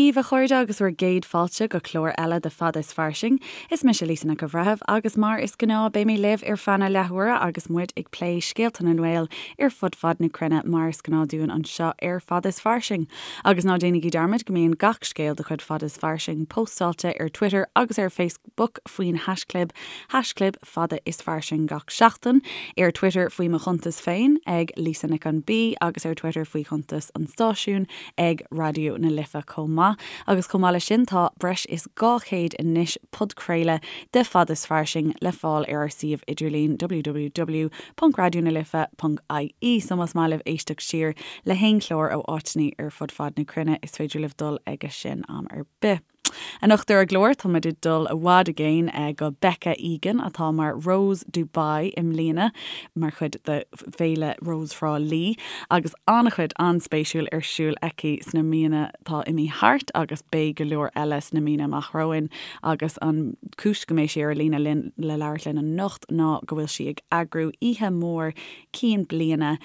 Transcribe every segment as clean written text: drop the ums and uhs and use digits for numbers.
daoibh, a chairde, agus bhur gcéad fáilte go clár eile de Fada is Fairsing. Is mise Lisa Nic an Bhreithimh agus mar is gnáth beidh mé libh ar feadh na leathuaire agus muid ag plé scéalta na nGael ar fud fad na cruinne mar is gnáth dúinn anseo ar Fada is Fairsing. Agus ná déanaigí dearmad go mbíonn gach scéal de chuid Fada is Fairsing póstáilte ar Twitter agus ar Facebook faoin haischlib, haischlib Fada is Fairsing gach seachtain, ar Twitter faoi mo chuntas féin ag Lisa Nic an B agus ar Twitter faoi chuntas an stáisiúin ag Raidió na Life chomh maith. Agus chomh maith leis sin tá breis is 200 anois podchraoladh de Fada is Fairsing le fáil ar ár suíomh idirlín www.raidionalife.ie so más maith libh éisteacht siar le haon chlár ó áiteanna ar fud fad na cruinne is féidir libh dul aige sin am ar bith. Anocht ar an gclár, tá muid ag dul i bhfad i gcéin go Becca Egan, atá mar Rose Dubai i mbliana, mar chuid de Féile Rose Thrá Lí, agus an-chuid an-spéisiúil ar siúl aici sna míonna atá imithe thart agus beidh go leor eile sna míonna amach romhainn. Agus an chúis go mbeidh sí ar an líne linn le labhairt linn anocht ná go bhfuil sí ag eagrú oíche mhór cinn bliana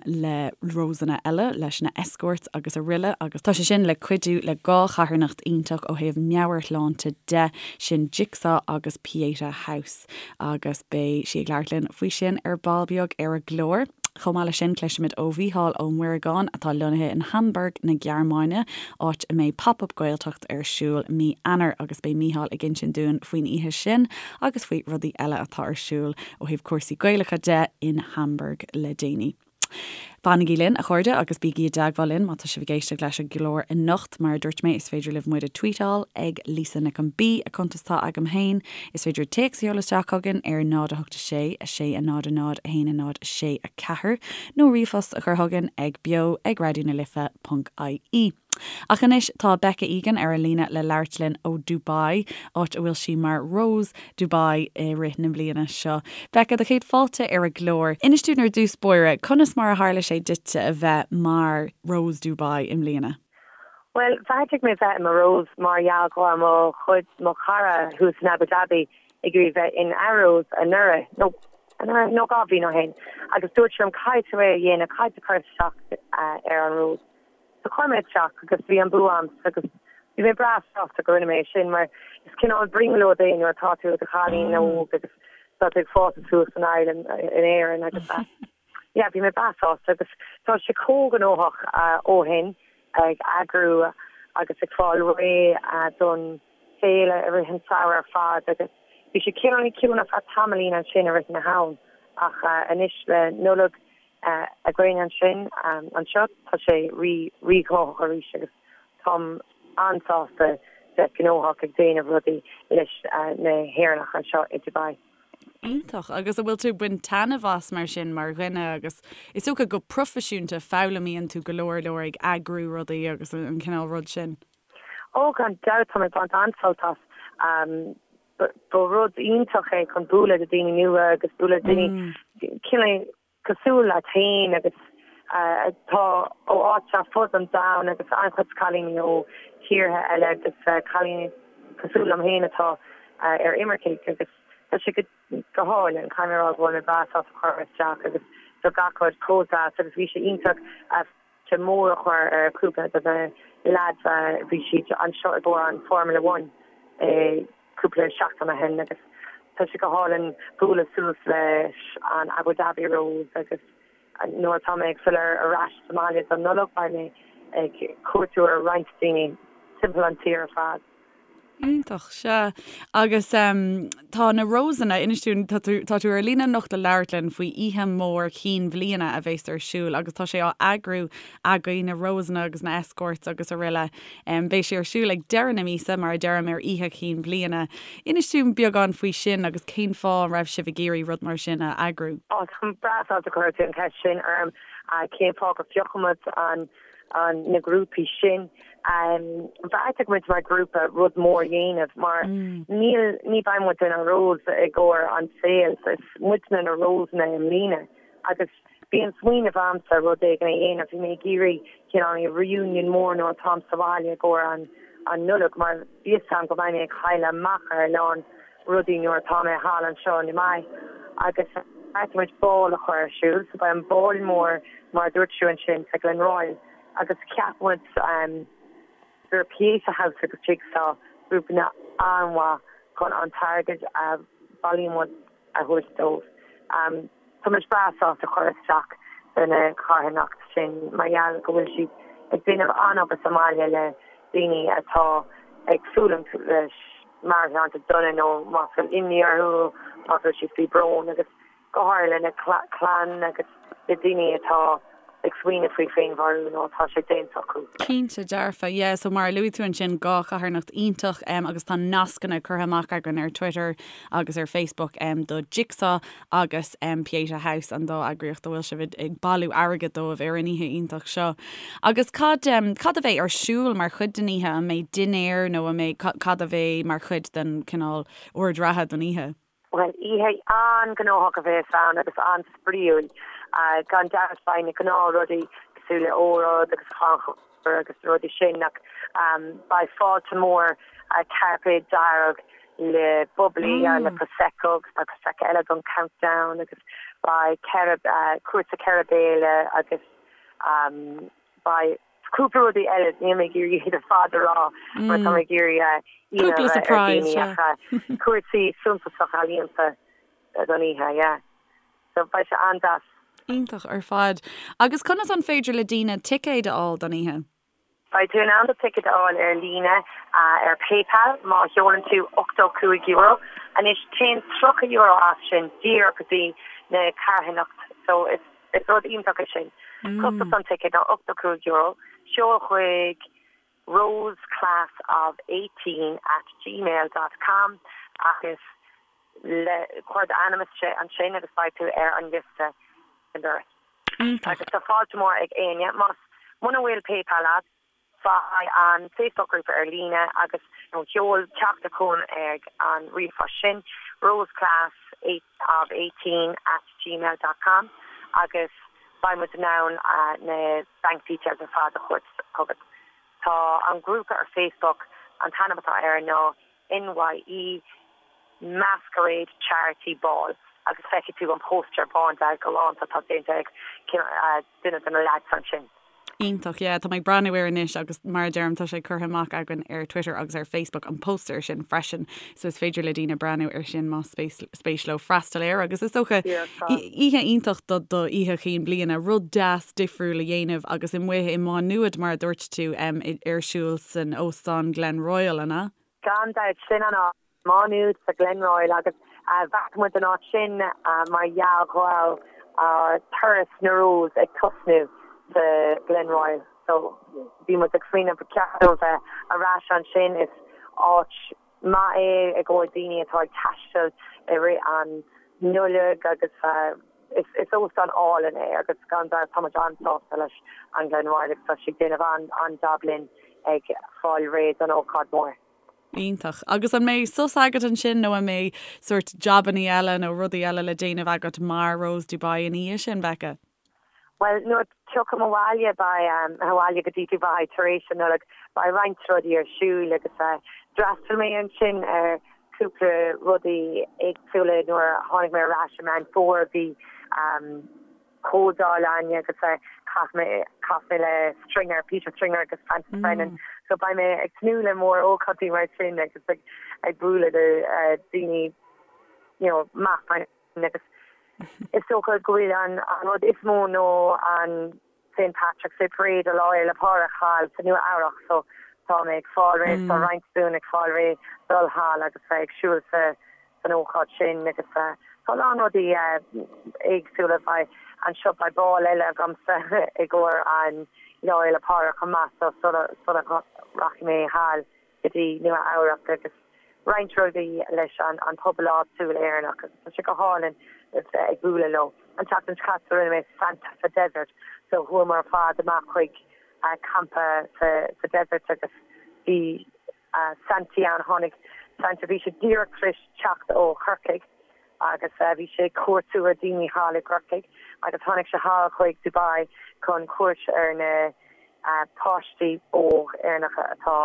le Rosanna eile, leis na escorts agus aroile agus tá sé sin le cuidiú le dhá charthanacht iontach ó thaobh meabhairshláinte de, sin Jigsaw agus Pieta House agus beidh sí ag labhairt linn faoi sin ar ball beag ar an gclár. Chomh maith leis sin cloisfimid ó Mhícheál Ó Muireagáin atá lonnaithe in Hamburg na Gearmáine, áit a mbeidh Pop Up Gaeltacht ar siúl mí Eanáir agus beidh Mícheál ag insint dúinn faoin oíche sin agus faoi rudaí eile atá ar siúl ó thaobh cúrsaí Gaelacha de in Hamburg le déanaí. Fanaigí linn, a chairde, agus bígí i dteagmháil linn má tá sibh ag éisteacht leis an gclár anocht. Mar a dúirt mé, is féidir libh muid a tweetáil ag Lisa Nic an B, a cuntas atá agam féin. Is féidir téacs a sheoladh isteach chugainn ar 0 8 6 6 0 0 1 0 6 4 nó ríomhphost a chur chugainn ag beo ag raidionalife.ie. Ach anois tá Becca Egan ar an líne le labhairt linn ó Dubai, áit a bhfuil sí mar Rose Dubai i rith na bliana seo. Becca, do chéad fáilte ar an gclár. Inis dúinn ar dtús báire, conas mar a tharla sé duitse a bheith mar Rose Dubai i mbliana? Bhuel, bheartaigh mé bheith i mo Rose mar gheall go raibh mo chuid, mo chara thuas in Abu Dhabi ag iarraidh bheith ina Rose anuraidh, nó anuraidh, nó 2 bhliain ó shin, agus dúirt sé liom caithfidh tú é a dhéanamh, caithfidh tú cur isteach ar an Rose. So chuir mé isteach agus bhí an bua a'msa agus bhí mé breá sásta go rinne mé é sin mar is cineál brionglóid é nuair atá tú i do chailín óg agus tá tú ag fás suas in Ireland, in Éirinn agus yeah bhí mé breá sásta agus tá sé chomh gnóthach ó shin ag eagrú agus ag fáil réidh don féile i rith an samhradh ar fad agus bhí sé cineál ciúin ar feadh tamaillín ansin i rith na ham ach anois le Nollaig againn ansin. Anseo tá sé rí rí-ghnóthach arís agus táim an-sásta bheith gnóthach ag déanamh rudaí leis na hÉireannach anseo i Dubai. Iontach. Agus an bhfuil tú ag baint taitneamh as mar sin mar dhuine agus is dócha go proifisiúnta foghlaimíonn tú go leor leor ag eagrú rudaí agus an cineál rud sin? Ó gan dabht tá mé ag baint an-sult as. Ba rud iontach é chun bualadh le daoine nua agus bualadh le daoine cineál cosúil leat féin agus atá ó áit ar fud an domhain agus an-chuid cailíní ó thíortha eile agus cailíní cosúil liom féin atá ar imircigh agus tá sé go hálainn. Caithfidh mé a rá go bhfuil mé breá sásta chuir mé isteach agus tá gach rud chomh deas agus bhí sé iontach fáilte mór a chur ar cúpla de na leaids bhí siad anseo i gcomhair an Formula One i cúpla seachtain ó shin agus tá sé go hálainn bualadh suas leis an Abu Dhabi Rose agus nuair atá mé ag filleadh ar ais sa mbaile don Nollaig beidh mé ag cuartú ar roinnt daoine timpeall an tír ar fad. Iontach, sea. Agus tá na Rosanna, inis dúinn, tá tú, tá tú ar líne anocht le labhairt linn faoi oíche mhór chinn bhliana a bheas ar siúl agus tá sé á eagrú agaibh, na Rosanna agus na Escorts agus aroile. Beidh sé ar siúl ag deireadh na míosa, mar a deirim, ar Oíche Chinn Bhliana. Inis dúinn beagán faoi sin agus cén fáth a raibh sibh ag iarraidh rud mar sin a eagrú. Á, táim breá sásta gur chuir tú an cheist sin orm. Cén fáth gur phioc muid an, an, na grúpaí sin? Bheartaigh muid mar ghrúpa rud mór a dhéanamh mar níl, ní bheidh muid inár Rose i gcomhair an saol. Is muidne na Rosanna i mbliana agus Bhí an smaoineamh a'msa rud éigin a dhéanamh, bhí mé ag iarraidh cineál reunion mór nuair atáim sa bhaile i gcomhair an an Nollaig mar bhí fhios a'm go mbeidh mé ag cailleadh amach ar a lán rudaí nuair atá mé thall anseo i Dubai agus bheartaigh muid ball a chur ar siúl so beidh an ball mór mar a dúirt tú ansin sa Glenroyal agus cheap muid. gur Pieta House agus Jigsaw grúpanna an-mhaith chun an t-airgead a bhailíonn muid a thabhairt dóibh. Tá muid breá sásta cur isteach do na carthanacht sin mar gheall go bhfuil siad ag déanamh an-obair sa mbaile le daoine atá ag fulaingt leis meabhairshláinte dona nó más bhfuil imní orthu, más bhfuil siad faoi brón agus go háirithe lena clann agus le daoine atá ag smaoineamh faoi féinmharú nó atá sé déanta acu. Cinnte dearfa, yeah, so mar a luaigh tú ansin, 2 charthanacht iontach agus tá nascanna curtha amach againn ar Twitter agus ar Facebook do Jigsaw agus Pieta House, an dá eagraíocht a bhfuil sibh ag bailiú airgid dóibh ar an oíche iontach seo. Agus cad, cad a bheidh ar siúl mar chuid den oíche? An mbeidh dinnéar nó an mbeidh, cad a bheidh mar chuid den cineál ord reatha don oíche? Bhuel, oíche an-ghnóthach a bheas ann agus an-spraíúil. Gan dabht beidh na gnáthrudaí cosúil le óráid agus crannchur agus na rudaí sin ach beidh fáilte mór, cairpéad dearg le bubbly, le prosecco agus beidh prosecco eile don countdown agus beidh cúrsa 4 béile agus beidh cúpla rudaí eile, níl mé ag iarraidh iad ar fad a rá mar tá mé ag iarraidh ionadh a bheith ar dhaoine ach cúrsaí suntasach ealaíonta don oíche, yeah. So beidh sé an-deas. Iontach ar fad. Agus conas an féidir le daoine ticéid a fháil don oíche? Beidh tú in ann do ticéad a fháil ar líne ar PayPal má sheolann tú €85. Anois téann €30 as sin díreach go dtí na carthanacht so is Is rud iontach é sin. Costas an ticéid ná €85. Seol chuig roseclassof18 at gmail dot com agus le cuir d'ainm isteach ansin agus beidh tú ar an liosta ag an doras. Agus tá fáilte mór ag éinne. Más muna bhfuil PayPal agat, Faigh an Facebook grúpa ar líne agus nó seol teachtaireacht chugainn ag an ríomhphost sin, roseclassof18 at gmail dot com agus beidh muid in ann na bank details ar fad a thabhairt chugat. Tá an grúpa ar Facebook, an t-ainm atá air ná NYE Masquerade Charity Ball agus feicfidh tú an póstaer bándearg galánta atá déanta ag duine de na leaids ansin. Iontach, yeah, tá mé ag breathnú air anois agus mar a deirim tá sé curtha amach againn ar Twitter agus ar Facebook an póstaer sin freisin so is féidir le daoine breathnú air sin más spéis leo freastal air agus is dócha oíche iontach do do oíche chinn bliana, rud deas difriúil a dhéanamh agus amuigh i Má Nuad mar a dúirt tú ar siúl san óstán Glenroyal, an ea? Gan dabht, sin an áit. Má Nuad sa Glenroyal agus bheartaigh muid an áit sin mar gheall go raibh ár turas na Rose ag tosnú sa Glenroyal so bhí muid ag smaoineamh ba cheart dúinn bheith ar ais ansin. Is áit maith é i gcomhair daoine atá ag taisteal i rith an Nollaig agus is óstán álainn é agus gan dabht tá muid an-sásta leis an Glenroyal agus tá siad ag déanamh an-jab linn ag fáil réidh don ócáid mhór. Iontach. Agus an mbeidh sos agat ansin nó an mbeidh sórt jabannaí eile nó rudaí eile le déanamh agat mar Rose Dubai ina dhiaidh sin, Becca? Bhuel, nuair a tiocfaim abhaile, beidh, abhaile go dtí Dubai tar éis an Nollaig, beidh roinnt rudaí ar siúl agus d'fhreastail mé ansin ar cúpla rudaí éagsúla nuair a tháinig mé ar ais i Meán Fómhair, bhí comhdháil againn agus chas mé chas mé le Stringer, Peter Stringer agus Francis Brennan. So beidh mé ag tnúth le mór ócáidí mar sin agus ag ag bualadh le daoine you know maith mar sin agus is dócha go bhfuil an an rud is mó nó an St Patrick's Day Parade a Lá Fhéile Pádraig thall sa Nua Eabhrach so tá mé ag fáil réidh tá roinnt dúinn ag fáil réidh dul thall agus bheith ag siúl sa san ócáid sin agus tá a lán rudaí éagsúla. Beidh anseo, beidh ball eile agamsa i gcomhair an Lá Fhéile Pádraig chomh maith so sula sula rachaidh mé thall go dtí Nua Eabhrac agus roinnt rudaí leis an an pobal áitiúil Éireannach agus tá sé go hálainn bheith ag bualadh leo. An tseachtain seo caite rinne mé Santa sa Desert so chuamar ar fad amach chuig campa sa sa desert agus bhí Santaí ann. Tháinig Santa, bhí sé díreach tar éis teacht ó Chorcaigh agus bhí sé ag cuartú ar daoine thall i gCorcaigh agus tháinig sé thall chuig Dubai chun cuairt ar na páistí óg Éireannacha atá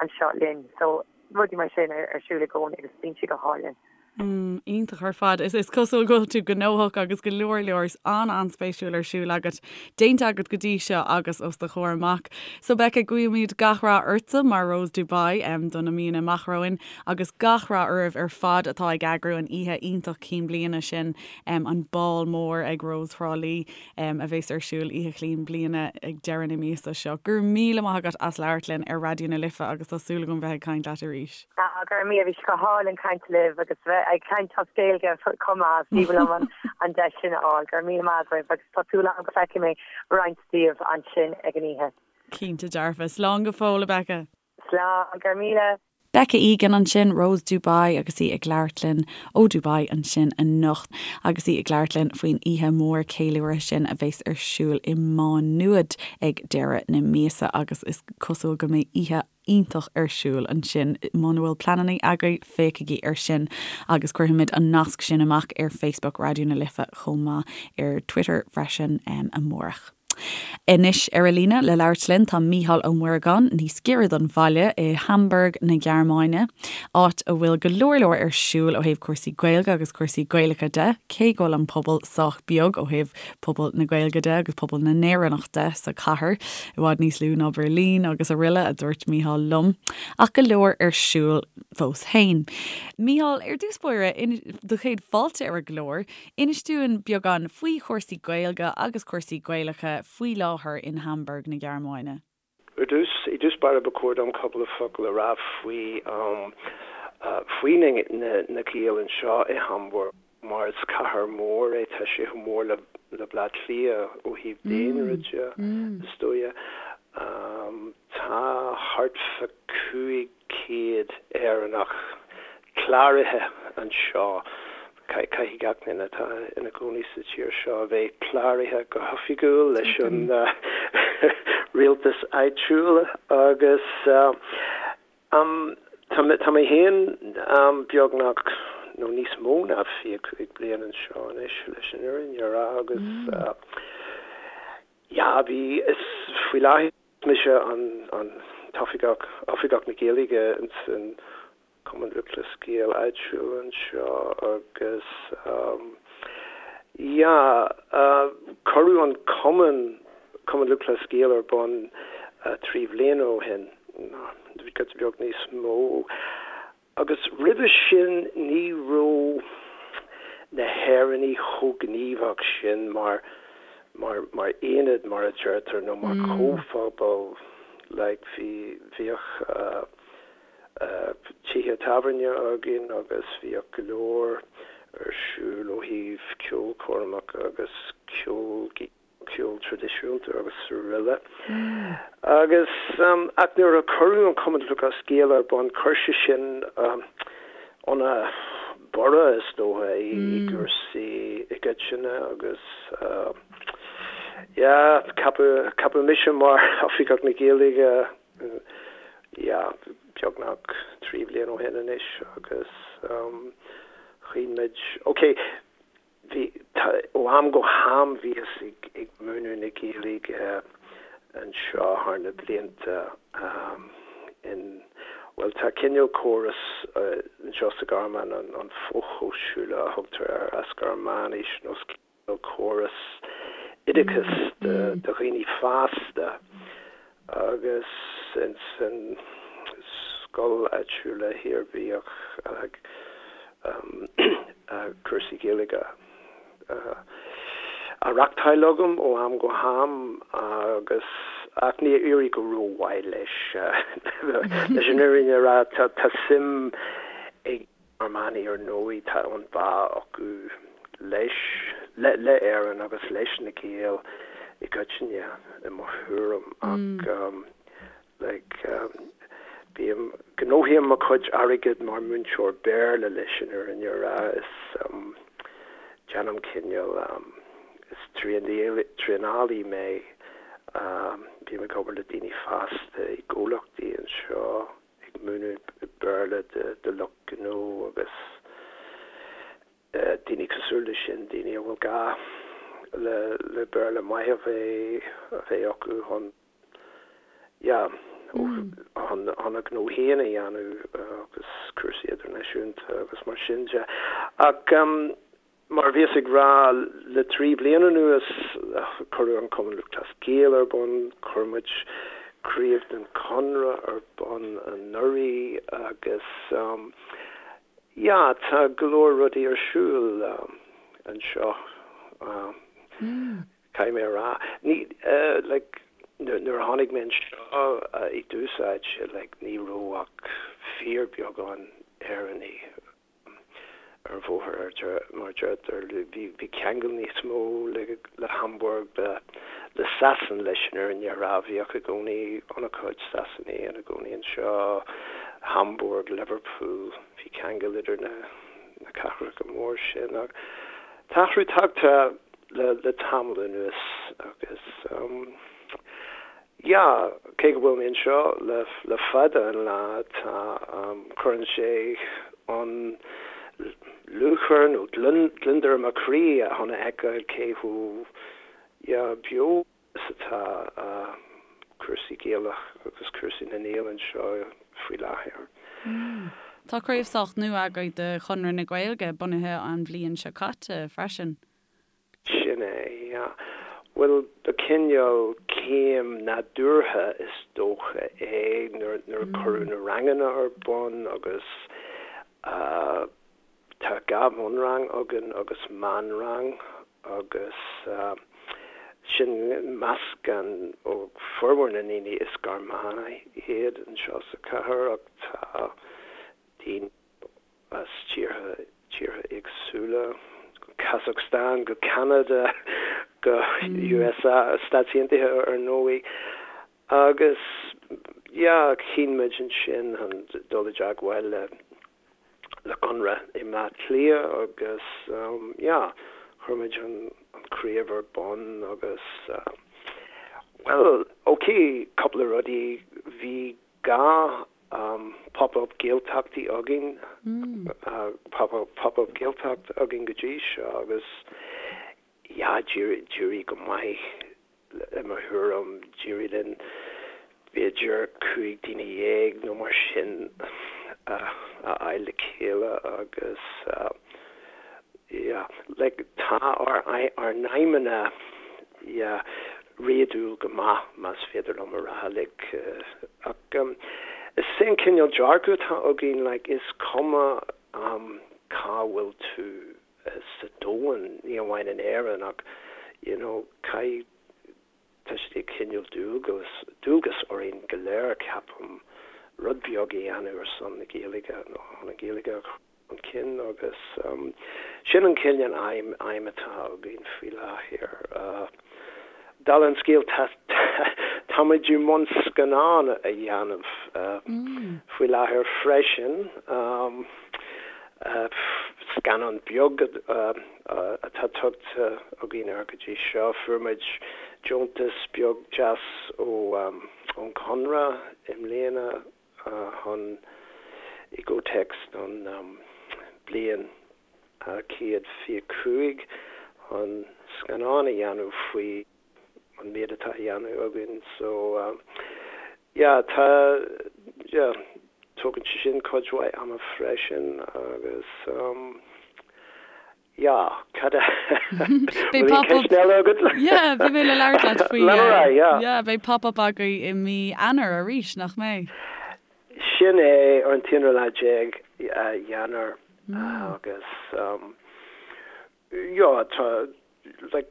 anseo linn. So rudaí mar sin ar siúl i gcónaí agus bíonn sé go hálainn. Iontach ar fad. Is is cosúil go bhfuil tú gnóthach agus go leor leor an-an-spéisiúil ar siúl agat, déanta agat go dtí seo agus os do chomhair amach. So Becca, guímid gach rath ortsa mar Rose Dubai do na míonna amach romhainn agus gach rath oraibh ar fad atá ag eagrú an oíche iontach cinn bliana sin, an bál mór ag Rose Thrá Lí. a bheas ar siúl Oíche Chinn Bliana ag deireadh na míosa seo. Go raibh míle maith agat as labhairt linn ar Raidió na Life agus tá súil agam bheith ag caint leat arís. Ah, go raibh míle, bhí sé go hálainn caint libh agus bheith ag caint as Gaeilge chomh maith, is aoibhinn liom an deis sin a fháil. Go raibh míle maith agaibh agus tá súil agam go bhfeicfidh mé roinnt díobh ansin ag an oíche. Cinnte dearfa. Slán go fóill, a Becca. Slán, go raibh míle. Becca Egan ansin, Rose Dubai agus í ag labhairt linn ó Dubai ansin anocht agus í ag labhairt linn faoin oíche mhór ceiliúrtha sin a bheas ar siúl i Má Nuad ag deireadh na míosa agus is cosúil go mbeidh oíche iontach ar siúl ansin. Muna bhfuil pleananna agaibh, féachaigí ar sin agus cuirfimid an nasc sin amach ar Facebook Raidió na Life chomh maith ar Twitter freisin amárach. Anois ar an líne le labhairt linn tá Mícheál Ó Muireagáin, níos giorra don bhaile i Hamburg na Gearmáine, áit a bhfuil go leor leor ar siúl ó thaobh cúrsaí Gaeilge agus cúrsaí Gaelacha de, cé go bhfuil an pobal sách beag ó thaobh pobal na Gaeilge de agus pobal na nÉireannach de sa chathair, i bhfad níos lú ná Berlin agus araile, a dúirt Mícheál liom. Ach go leor ar siúl fós féin. Mícheál, ar dtús báire, do chéad fáilte ar an gclár. Inis dúinn beagán faoi chúrsaí Gaeilge agus cúrsaí Gaelacha faoi láthair in Hamburg na Gearmáine. Ar dtús, i dtús báire ba chóir dom cúpla focal a rá faoi faoi na na Gaeil anseo i Hamburg mar is cathair mhór é, tá sé chomh mór le le Bleá Cliath ó thaobh daonra de, is dóigh. Tá thart fá 500 Éireannach cláraithe anseo. Caithfidh gach duine atá ina gcónaí sa tír seo a bheith cláraithe go hoifigiúil leis an rialtas áitiúil agus tá mé féin beagnach nó níos mó ná 25 bliain anseo anois leis an fhírinne a rá agus yeah bhí is faoi láthair mise an t-oifigeach oifigeach na Gaeilge ins an Cumann Lúthchleas Gael áitiúil anseo agus yeah cuireadh an cumann, Cumann Lúthchleas Gael ar bun 3 bhliana ó shin, giota beag níos mó. Agus roimhe sin ní raibh na hÉireannaigh chomh gníomhach sin mar mar mar aonad mar a deirtear nó mar chomhphobal like bhí bhíodh tithe tábhairne againn agus bhíodh go leor ar siúl ó thaobh ceolchoirmeacha agus ceol, ceol traidisiúnta agus araile. Agus ach nuair a cuireadh an Cumann Lúthchleas Gael ar bun chuir sé sin ana borradh is dócha i gcúrsaí i gcoitinne agus yeah ceapadh ceapadh mise mar Oifigeach na Gaeilge yeah, beagnach 3 bhliain ó shin anois agus chinn muid, ok, bhí, tá, ó am go ham bhíothas ag, ag múineadh na Gaeilge anseo thar na blianta in, bhuel tá cineál córas anseo sa Ghearmáin, an, an Fachhochschule a thugtar air as Gearmáinis nó córas oideachais do dhaoine fásta agus ins an scoil áitiúil thiar bhíodh cúrsaí Gaeilge á reachtáil agam ó am go ham agus ach níor éirigh go rómhaith leis leis an fhírinne a rá tá suim ag Gearmánaigh ar ndóigh tá an bá acu leis, le, le Éirinn agus leis na Gaeil i gcoitinne i mo thuairim ach like bím, gnóthaím mo chuid airgid mar múinteoir Béarla leis an fhírinne a rá is déanaim cineál is traenálaí mé bím ag obair le daoine fásta i gcomhlachtaí anseo. ag múineadh Béarla do lucht gnó agus daoine cosúil leis sin, daoine a bhfuil gá le Béarla maith a bheith a bheith acu chun yeah. Chun a ngnó féin a dhéanamh agus cúrsaí idirnáisiúnta agus mar sin de. Ach mar a bhíos ag rá, le 3 bliana anuas, cuireadh an Cumann Lúthchleas Gael ar bun, chuir muid craobh den Chonradh ar bun anuraidh agus yeah, tá go leor rudaí ar siúl anseo. Caithfidh mé a rá, ní, like, nuair a tháinig mé anseo i dtús áite, like, ní raibh ach fíorbheagán Éireannaigh ar an bhóthar, mar a deirtear. Bhí ceangal níos mó le Hamburg, le Sasain, leis an fhírinne a rá. Bhíodh i gcónaí an-chuid Sasanaigh ina gcónaí anseo, Hamburg, Liverpool, bhí ceangal idir na cathracha mór sin. Ach tá athrú tagtha le tamall anuas agus yeah, cé go bhfuil mé anseo le fada an lá, tá, cuireann sé an lúcháir nó gliondar i mo chroí chun a fheiceáil cé chomh yeah, beo is atá cúrsaí Gaelach agus cúrsaí na nGael anseo faoi láthair. Tá craobh sách nua agaibh de Chonradh na Gaeilge, bunaithe an bhliain seo caite freisin. Sin é, yeah. Bhuel, ba cineál céim nádúrtha is dócha é nuair a cuireadh na ranganna ar bun agus tá 2 bhunrang againn agus meánrang agus sin meascán ó formhór na ndaoine is Gearmánaigh iad anseo sa chathair ach tá daoine as tíortha tíortha éagsúla, Kazakhstan go Ceanada go USA, Stáit Aontaithe ar ndóigh. Agus yeah, chinn muid ansin chun dul i dteagmháil le le Conradh i mBleá Cliath agus yeah, chuir muid an craobh ar bun agus bhuel, ok, cúpla rudaí, bhí gá Pop-up Gaeltachtaí againn, Pop-up Gaeltacht againn go dtí seo agus yeah, d'éirigh go maith i mo thuairim, d'éirigh linn b'fhéidir 15 daoine nó mar sin a fháil le chéile agus yeah, like tá ár ár n-aidhmeanna yeah, réadúil go maith, más féidir liom a rá, like, ach is é an cineál dearcadh atá againn, like, is cuma cá bhfuil tú sa domhan, ní amháin in Éirinn ach, you know, caithfidh, tá sé de chineál dualgas, dualgas orainn go léir, ceapaim, rud beag a dhéanamh ar son na Gaeilge nó chun an Ghaeilge a chur chun cinn agus sin an cineál aidhm aidhm atá againn faoi láthair. Dála an scéil tá táimid i mbun scannán a dhéanamh faoi láthair freisin, scannán beag atá tugtha againn air go dtí seo. Fuair muid deontas beag deas ón Chonradh i mbliana chun i gcomhthéacs don bliain 125 chun scannán a dhéanamh faoi an méid atá á dhéanamh againn so yeah tá yeah tógann sé sin cuid mhaith ama freisin agus Yeah, cad a Beidh Bhfuil aon pop-up ceist eile agat? Yeah, bhí mé le labhairt leat faoi Lean ar aghaidh, yeah. Yeah, beidh pop-up agaibh i mí Eanáir arís, nach mbeidh? Sin é, ar an t-aonú lá déag Eanáir agus yeah, tá like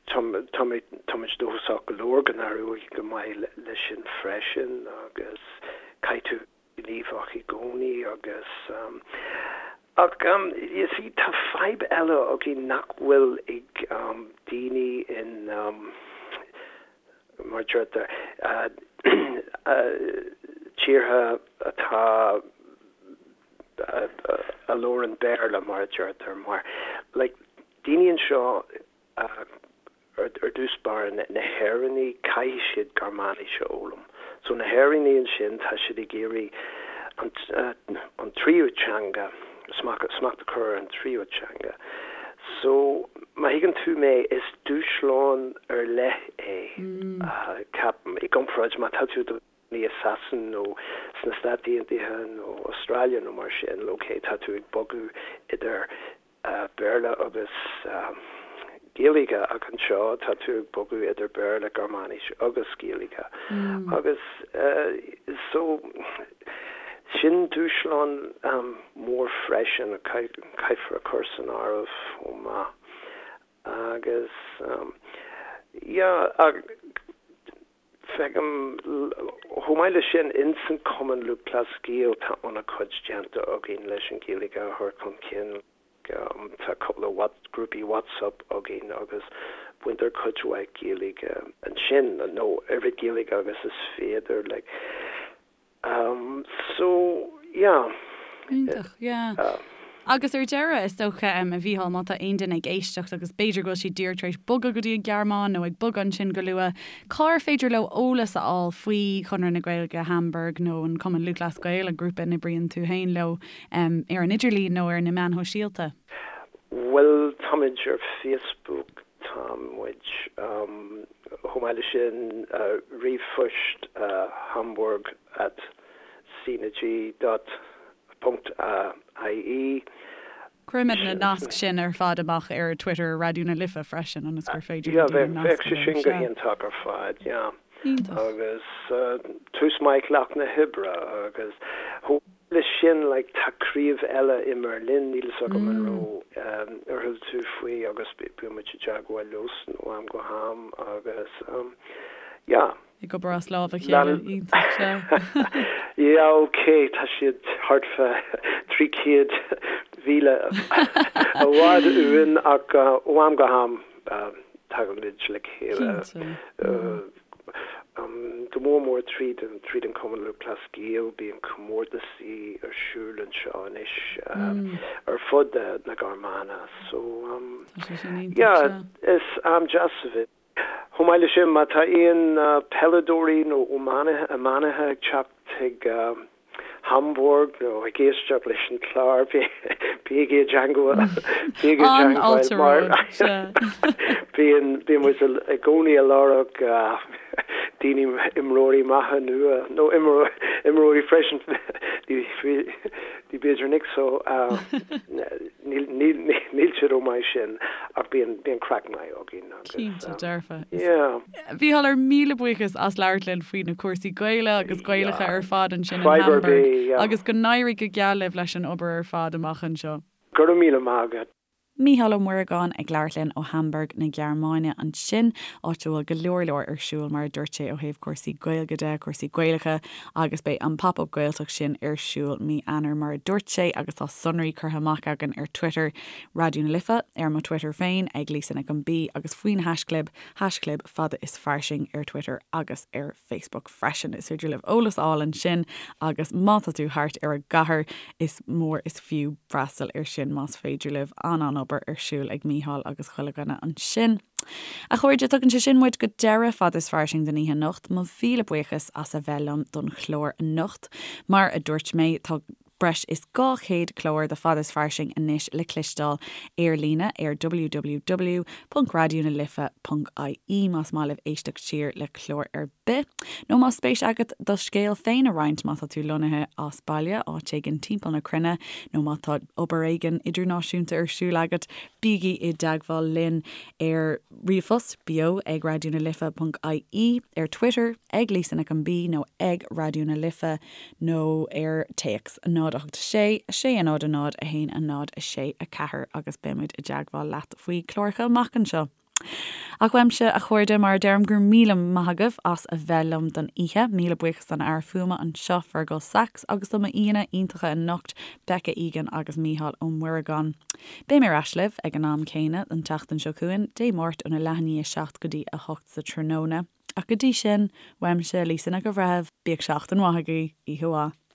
tá tá mé táimid dóchasach go leor go n-éireoidh go maith leis sin freisin agus caithfidh tú gníomhach i gcónaí agus ach you see tá fadhb eile againn nach bhfuil ag daoine in mar a deirtear tíortha atá a labhrann Béarla mar a deirtear mar like daoine anseo Ar dtús báire, na hÉireannaigh, caithfidh siad Gearmáinis a fhoghlaim. So na hÉireannaigh ansin, tá siad ag iarraidh an tríú teanga, smacht a chur ar an tríú teanga. So, má thuigeann tú mé, is dúshlán ar leith é, ceapaim, i gcomparáid má tá tú i do chónaí i Sasana nó sna Stáit Aontaithe nó Australia nó mar sin, ok, tá tú ag bogadh idir Béarla agus Gaeilge ach anseo tá tú ag bogadh idir Béarla, Gearmáinis agus Gaeilge agus so sin dúshlán mór freisin a caithfear a chur san áireamh chomh maith agus yeah Feicim, chomh maith leis sin, ins an Cumann Lúthchleas Gael tá an-chuid déanta againn leis an Ghaeilge a chur chun cinn. Tá cúpla grúpaí WhatsApp againn agus baintear cuid mhaith Gaeilge ansin, nó oiread Gaeilge agus is féidir like. So, yeah. Iontach, yeah. Agus ar deireadh, is dócha, a Mhícheáil, má tá aon duine ag éisteacht agus b'fhéidir go bhfuil siad díreach tar éis bogadh go dtí an Ghearmáin nó ag bogadh ansin go luath, cár féidir leo eolas a fháil faoi Chonradh na Gaeilge Hamburg nó an Cumann Lúthchleas Gael, an grúpa a n-oibríonn tú féin leo, ar an idirlíon nó ar na meáin shóisialta? Bhuel, táimid ar Facebook, Tá muid, chomh maith leis sin, ríomhphost hamburg at cng dot ponc ie. Cuirfimid na naisc sin ar fad amach ar Twitter Raidió na Life freisin ionas gur féidir le daoine nascadh leo. Bheadh sé sin go hiontach ar fad, yeah. Iontach. Agus tús maith lucht na hoibre agus chomh leis sin like tá craobh eile i mBerlin, níl fhios agam an raibh ar chuala tú faoi agus bíonn muid i dteagmháil leosan ó am go ham agus yeah. Ag obair as lámh a chéile, iontach, sea. Yeah ok, tá siad thart fá 300 mhíle i bhfad uainn ach ó am go ham tagaimid le chéile. Cinnte. Go mór mór tríd an tríd an Cumann Lúthchleas Gael, bíonn comórtasaí ar siúl anseo anois ar fud na Gearmáine so Tá sé sin iontach, yeah sea. is am deas a bheith. Chomh maith leis sin, má tá aon peileadóirí nó iománaithe ag teacht chuig Hamburg nó ag éisteacht leis an chlár, bígí i dteagmháil bígí i dteagmháil mar bíonn bíonn muid i gcónaí ag lorg daoine imreoirí maithe nua nó imreoirí freisin ní b'fhéidir Nick so níl níl níl siad chomh maith sin ach bíonn bíonn craic maith againn agus Cinnte dearfa. yeah. Mhícheál, ár míle buíochas as labhairt linn faoi na cúrsaí Gaeilge agus Gaelacha ar fad ansin in Fadhb ar Hamburg bith, yeah. agus go n-éirí go geal libh leis an obair ar fad amach anseo. Go raibh míle maith agat. Mícheál Ó Muireagáin ag labhairt linn ó Hamburg na Gearmáine ansin, áit a bhfuil go leor leor ar siúl mar a dúirt sé ó thaobh cúrsaí Gaeilge de, cúrsaí Gaelacha agus beidh an Pop Up Gaeltacht sin ar siúl mí Eanáir mar a dúirt sé agus tá sonraí curtha amach againn ar Twitter Raidió na Life, ar mo Twitter féin ag Lisa Nic an B agus faoin haischlib haischlib fada is fairsing ar Twitter agus ar Facebook freisin. Is féidir libh eolas a fháil ansin agus má tá tú thart ar an gcathair is mór is fiú freastal ar sin más féidir libh. An-an-obair ar siúl ag Mícheál agus chuile dhuine ansin. A chairde, tugann sé sin muid go deireadh Fada is Fairsing don oíche anocht. Mo mhíle buíochas as a bheith liom don chlár anocht. Mar a dúirt mé, tá breis is 200 clár de Fada is Fairsing anois le cloisteáil ar líne ar www.raidionalife.ie más maith libh éisteacht siar le clár ar bith. Nó más spéis agat do scéal féin a roinnt má tá tú lonnaithe as baile, áit éigin timpeall na cruinne, nó má tá obair éigin idirnáisiúnta ar siúl agat, bígí i dteagmháil linn ar ríomhphost, beo ag raidionalife.ie, ar Twitter, ag Lisa Nic an B nó ag Raidió na Life. nó ar téacs 0 8 6 6 0 0 1 0 6 4 agus beimid i dteagmháil leat faoi chláracha amach anseo. Ach uaimse, a chairde, mar a deirim, go raibh míle maith agaibh as a bheith liom don oíche. Míle buíochas don fhear fuaime anseo, Fergal Sachs, agus do m'aíonna iontacha anocht, Becca Egan agus Mícheál Ó Muireagáin. Beidh mé ar ais libh ag an am céanna an tseachtain seo chugainn, Dé Máirt óna leath i ndiaidh a 7 go dtí a 8 sa tráthnóna. Ach go dtí sin, uaimse, Lisa Nic an Bhreithimh, bíodh seachtain mhaith agaibh, oíche mhaith.